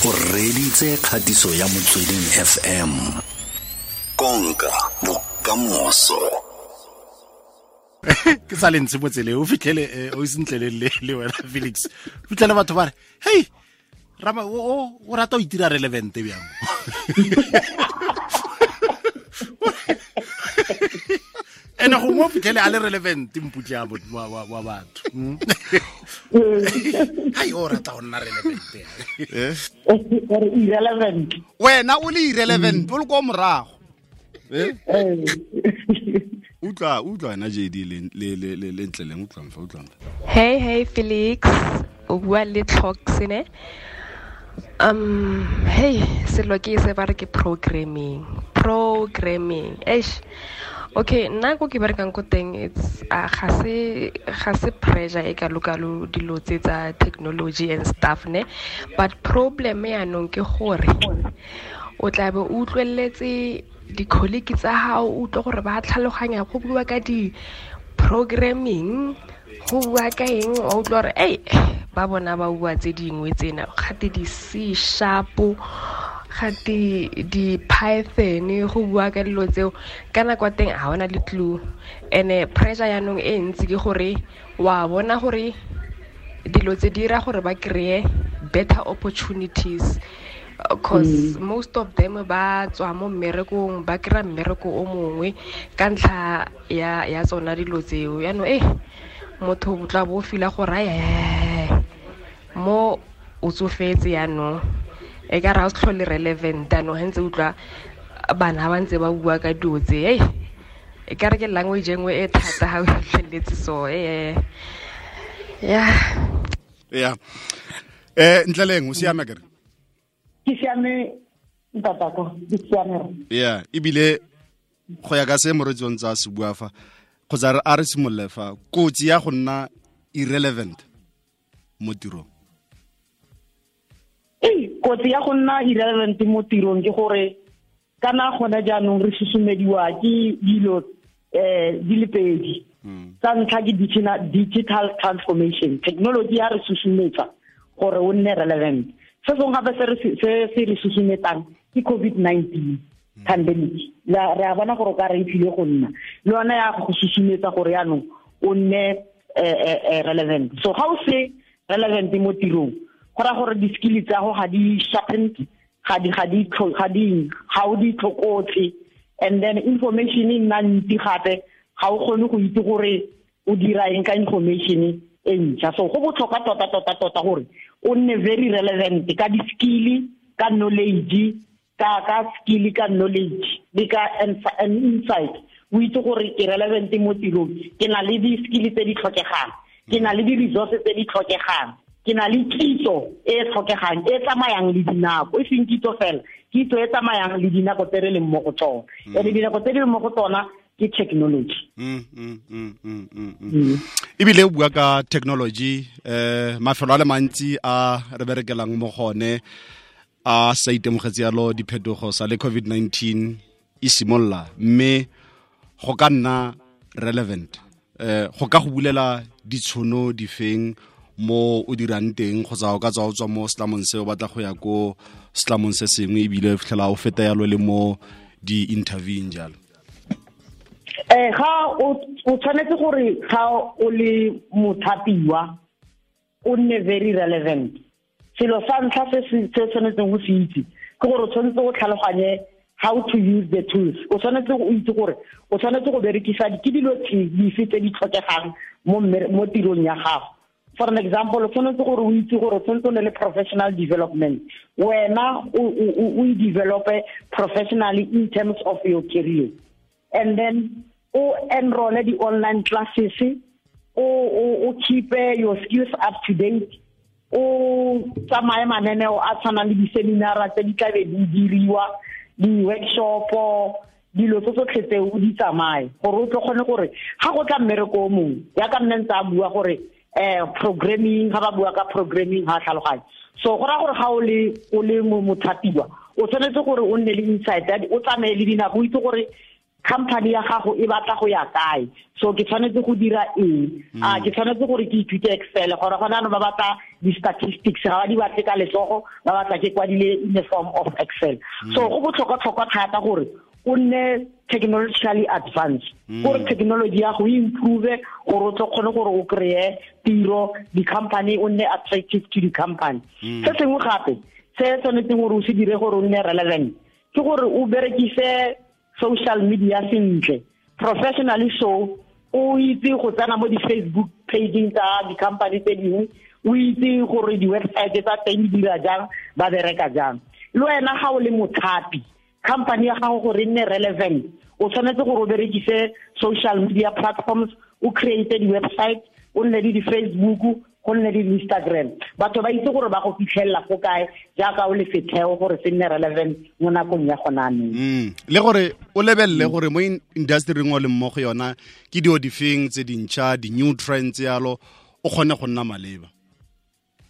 O reditse kgatiso ya Motsweding FM. Konka bokamoso. Ke sa le ntse mo tseleng, o fitlhele o sentle le wena Felix. O fitlhele batho ba re, "Hey, Rama o rata o itira relevant bjang?" Ene go mo fitlhele a le relevant mputla wa batho. Hai, o rata go nna relevant. Irrelevant. Wena o le irrelevant, o le ko morago. Utlwa wena JD le ntleleng, utlwang fa, utlwang fa. Hey, hey Felix, o bua le Tlhox ne? Hey, selo ke se ba re ke programming. Programming. Eish. Okay, nna ko ke berekang ko teng, it's ga se pressure e kalo-kalo dilo tse tsa technology and stuff ne, but problem yaanong ke gore o tla be o utlweletse di-colleague tsa gago, o utlwe gore ba tlhaloganya go bua ka di-programming, go bua ka eng, wa utlwa gore ei ba bona ba bua tse dingwe tsena, gate di-C sharp, gate di-Python, go bua ka dilo tseo. Ka nako ya teng ga ona le clue. And-e pressure yaanong e ntsi ke gore wa bona gore dilo tse di dira gore ba kry-e better opportunities, 'cause most of them ba tswa mo mmerekong, ba kry-a mmereko o mongwe ka ntlha ya tsona dilo tseo. Yaanong motho o tla bo o feel-a gore ai, mo o tsofetse yaanong, e ka re ga o se tlhole relevant yaanong, ga ntse o utlwa bana ba ntse ba bua ka dilo tse, e ka re ke language e nngwe e thata ga o fitlheletse so, yeah. Yeah. Ntleleng, o siame akere? Ke siame ntatako, ke siame. Yeah, ebile go ya ka se moretsi o ntse a se bua fa, kgotsa a re simolole fa, kotsi ya go nna irrelevant mo tirong. Ei, kotsi ya go nna irrelevant mo tirong ke gore kana gone jaanong re susumediwa ke dilo di le pedi. Tsa ntlha ke digital transformation, technology ya re susumetsa gore o nne relevant. Se sengwe gape se se re susumetsang ke COVID-19 pandemic. Re a bona gore o ka re e tlile go nna le yone ya go susumetsa gore jaanong o nne relevant. So ga o se relevant mo tirong, go raya gore di-skill tsa go ga di sharpened, ga di, ga di tlho-, ga di, ga o di tlhokotse. And then information e nna ntsi gape, ga o kgone go itse gore o dira eng ka information e ntšha. So go botlhokwa tota, tota, tota gore o nne very relevant ka di-skill, ka knowledge, ka skill, ka knowledge le ka insight. O itse gore ke relevant mo tirong, ke na le di-skill tse di tlhokegang, ke na le di-resources tse di tlhokegang, ke na le kitso e e tlhokegang, e tsamayang le dinako, e seng kitso fela, kitso e tsamayang le dinako tse re leng mo go tsona. And dinako tse di leng mo go tsona ke technology. Ebile o bua ka technology, mafelo a le mantsi a re berekelang mo gone a sa itemogetse yalo diphetogo sa le COVID-19 e simolla, mme go ka nna relevant, go ka go bulela ditshono difeng mo o dirang teng, kgotsa o ka tswa o tswa mo setlamong se o batla go ya ko setlamong se sengwe, ebile o fitlhela o feta yalo le mo di-interviewing jalo. Ga o tshwanetse gore ga o le mothapiwa o nne very relevant. Selo sa ntlha se se tshwanetseng go se itse ke gore o tshwanetse go tlhaloganye how to use the tools. O tshwanetse go itse gore o tshwanetse go berekisa ke dilo dife tse di tlhokegang mo tirong ya gago. For an example, o tshwanetse gore o itse gore o tshwanetse o nne le professional development. Wena o e develope professionally in terms of your career. And then o enroll di online classes, o keep your skills up to date, o tsamaye mananeo a tshwanang le di-seminara tse di tlabe di diriwa, di-workshop, dilo tse tsotlhe tse o di tsamaye gore o tlo kgone gore ga go tla mmereko o mongwe, jaaka nne ntse a bua gore programming, ga ba bua ka programming ga tlhaloganye. So go raya gore ga o le mothapiwa, o tshwanetse gore o nne le insight, o tsamaye le dinako, o itse gore company ya gago e batla go ya kae, so ke tshwanetse go dira eng, a ke tshwanetse gore ke ithute Excel, gore gona no ba batla di-statistics, ga ba di batle ka letsogo, ba batla ke kwadile in the form of Excel. So go botlhokwa-tlhokwa thata gore o nne technologically advanced, gore technology ya go improve, gore o tlo kgone gore o kry-e tiro, di-company o nne attractive to di-company. Se sengwe gape se tshwanetseng gore o se dire gore o nne relevant ke gore o berekise social media sentle, professionally. So o itse go tsena mo di-Facebook pageng tsa di-company tse dingwe, o itse gore di-website tsa teng di dira jang, ba bereka jang. Le wena ga o le mothapi, company ya gago gore e nne relevant, o tshwanetse gore o berekise social media platforms, o create di-website, o nne le di-Facebook, go nne le di-Instagram, batho ba itse gore ba go fitlhelela fo kae jaaka o le setheo gore se nne relevant mo nakong ya gona anong. Le gore o lebelele gore mo industry-ing o leng mo go yona ke dio difeng tse dintšha, di-new trends yalo, o kgone go nna maleba.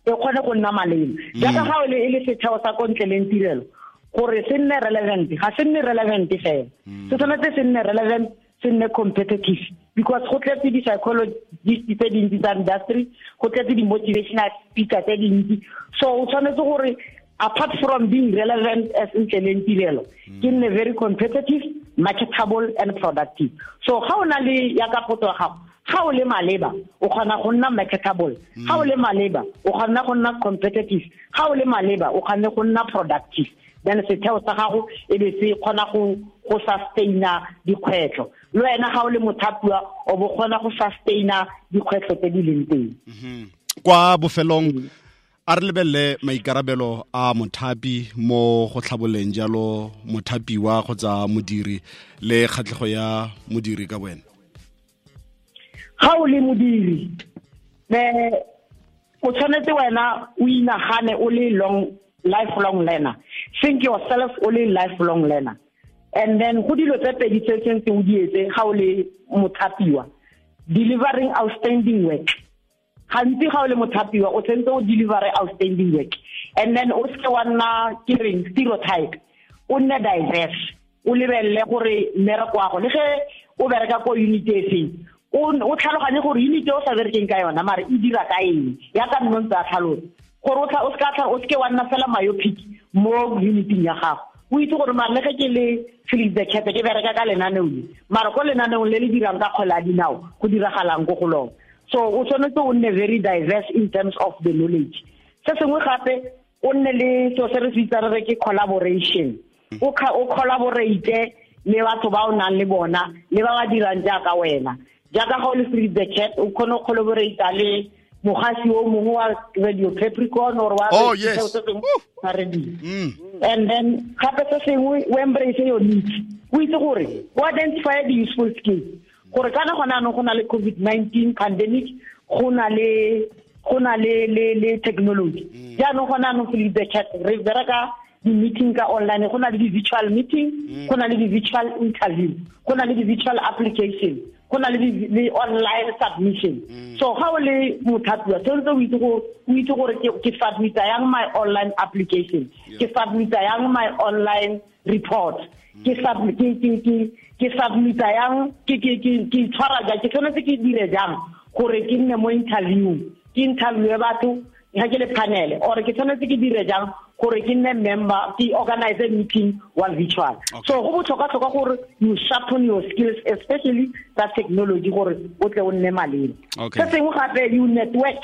E kgone go nna maleba. Jaaka ga o le e le setheo sa ko ntle leng tirelo, gore se nne relevant, ga se nne relevant fela. Se tshwanetse se nne relevant, se nne competitive, because go tletse di-psychologist tse dintsi tsa industry, go tletse di-motivational speaker tse dintsi. So o tshwanetse gore apart from being relevant as ntle leng tirelo, ke nne very competitive, marketable and productive. So ga o na le ya ka potso ya gago, ga o le maleba o kgona go nna marketable, ga o le maleba o kgona go nna competitive, ga o le maleba o kgona go nna productive. Then setheo sa gago e be se kgona go sustaina dikgwetlho. Le wena ga o le mothapiwa o bo kgona go sustaina dikgwetlho tse di leng teng. Kwa bofelong a re lebelele maikarabelo a mothapi mo go tlhaboleng jalo mothapiwa kgotsa modiri le kgatlhego ya modiri ka wena. Ga o le modiri, o tshwanetse wena o inagane o le lifelong learner. Think yourself only lifelong learner. And then go dilo tse pedi tse tshwanetse o di etse ga o le mothapiwa, delivering outstanding work. Gantsi ga o le mothapiwa o tshwanetse o deliver outstanding work. And then o seke wa nna ke reng stereotype, o nne diverse, o lebelele gore mmereko wa go le ge o bereka ko unit e feng, o tlhaloganye gore unit e o sa berekeng ka yona mare e dira ka eng, ya ka nno ntse a tlhalosa. Gore o seke wa nna fela myopic mo uniting ya gago. O itse gore mare le ge ke le Felix the Cat ke bereka ka lenaneo le, mare ko lenaneong le le dirang ka kgwele ya dinao go diragalang ko go lona. So o tshwanetse o nne very diverse in terms of the knowledge. Se sengwe gape o nne le seo se re se bitsang re ke collaboration. O collaborate le batho ba o nang le bona le ba ba dirang jaaka wena. Jaaka ga o le Felix the Cat o kgone go collaborate le mogasi o mongwe wa Radio Capricorn or wa radio. And then gape se sengwe o embrace your needs. O itse gore o identify the useful skills. Gore kana gona anong go na le COVID-19 pandemic, go na le technology. Jaanong gona anong Felix the Cat re bereka di-meeting ka online, go na le di-virtual meeting, go na le di-virtual interview, go na le di-virtual application, go na le online submission. So ga o le mothapiwa tshwanetse o itse gore ke submita yang my online application, ke submita yang my online report, ke submita yang ke tshwara jang, ke tshwanetse ke dire jang gore ke nne mo interview, ke interview batho ga ke le panel, or ke tshwanetse ke dire jang gore ke nne member, ke organize meeting wa virtual. So go botlhokwa-tlhokwa gore you sharpen your skills, especially tsa technology, gore o tle o nne maleba. Se sengwe gape, you network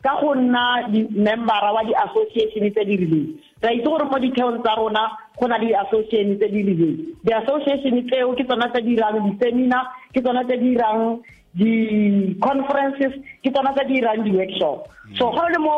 ka go nna di-membera wa di-association tse di rileng. Re a itse gore mo ditheong tsa rona go na le di-association tse di rileng. Di-association tseo ke tsona tse di dirang di-seminar, ke tsona tse di dirang di-conferences, ke tsona tse di dirang di-workshop. So ga o le mo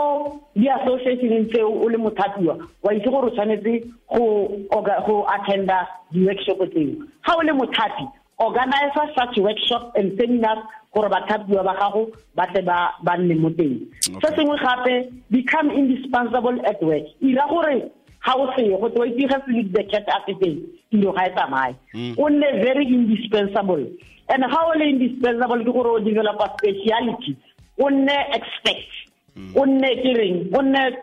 di-associationeng tseo o le mothapiwa, wa itse gore o tshwanetse go attenda di-workshop tseo. Ga o le mothapi, organize such workshop and seminars gore bathapiwa ba gago ba tle ba nne mo teng. Se sengwe gape, become indispensable at work. Ira gore ga o seye go twe itse ga Felix the Cat a se teng, tiro ga e tsamaye. O nne very indispensable. And ga o le indispensable ke gore o develop a speciality, o nne expert, o nne ke reng, o nne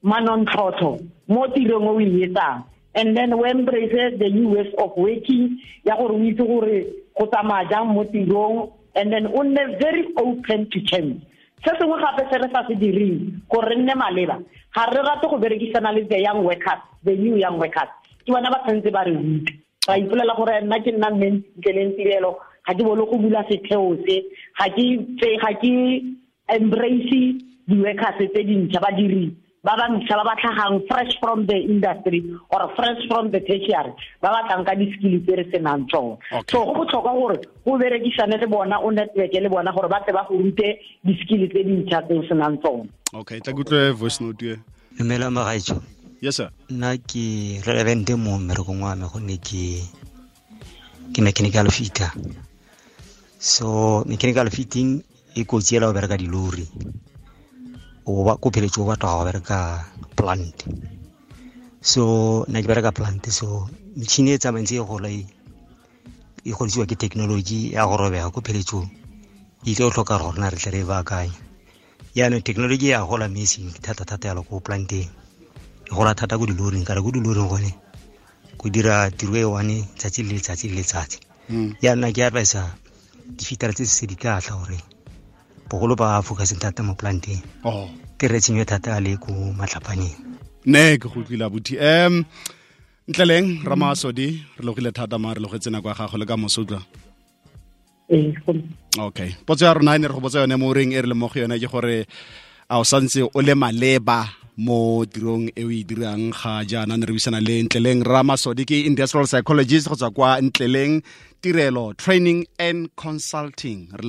manontlhotlho mo tirong o e etsang. And then we embrace the new ways of working, ya gore o itse gore go tsamaya jang mo tirong, and then o nne very open to change. Se sengwe gape se re sa se direng gore re nne maleba, ga re rate go berekisana le the young workers, the new young workers. Ke bona ba tshwanetse ba re rute. Ra ipolela gore nna ke nna mme Ntleleng Tirelo, ga ke bolo go bula setheo se, ga ke embrace di-workers tse dintšha, badiri ba ba ntšha ba ba tlhagang fresh from the industry or fresh from the tertiary, ba ba tlang ka di-skill tse re senang tsone. So go botlhokwa gore go berekisane le bona, o network le bona gore ba tle ba go rute di-skill tse dintšha tse o senang tsone. Okay, tla kutlwe voice note e. Dumela magaetsho. Yes sir. Nna ke relevant mo mmerekong wa me gonne ke mechanical fitter. So mechanical fitting e kotsi ela go bereka dilori. O ba ko pheletse o batla go bereka plant. So nna ke bereka plant, so metšhini e tsamayng tse e gola e godisiwa ke technology ya go robega ko pheletsong e tlo tlhoka gore rona re tle re e baakanye. Jaanong technology ya gola mme e seng thata-thata yalo ko planteng, e gola thata ko diloring, kare ko diloring gone go dira tiro e one tsatsi le letsatsi le letsatsi. Jaanong ke advisa difitara tse se di tla tla gore bogolo ba focuseng thata mo planteng. Ke re tshenyo thata le ko matlhapaneng. Ne ke go utlwile abuti. Ntleleng Ramasodi, re logile thata ma re logetse nako ya gago le ka moso utlwa. Okay. Potso ya rona e ne re go botsa yone mo reng e re le mo go yone ke gore a o santse o le maleba mo tirong e o e dirang ga jaana. Ne re buisana le Ntleleng Ramasodi, ke industrial psychologist go tswa kwa Ntleleng Tirelo Training and Consulting. Re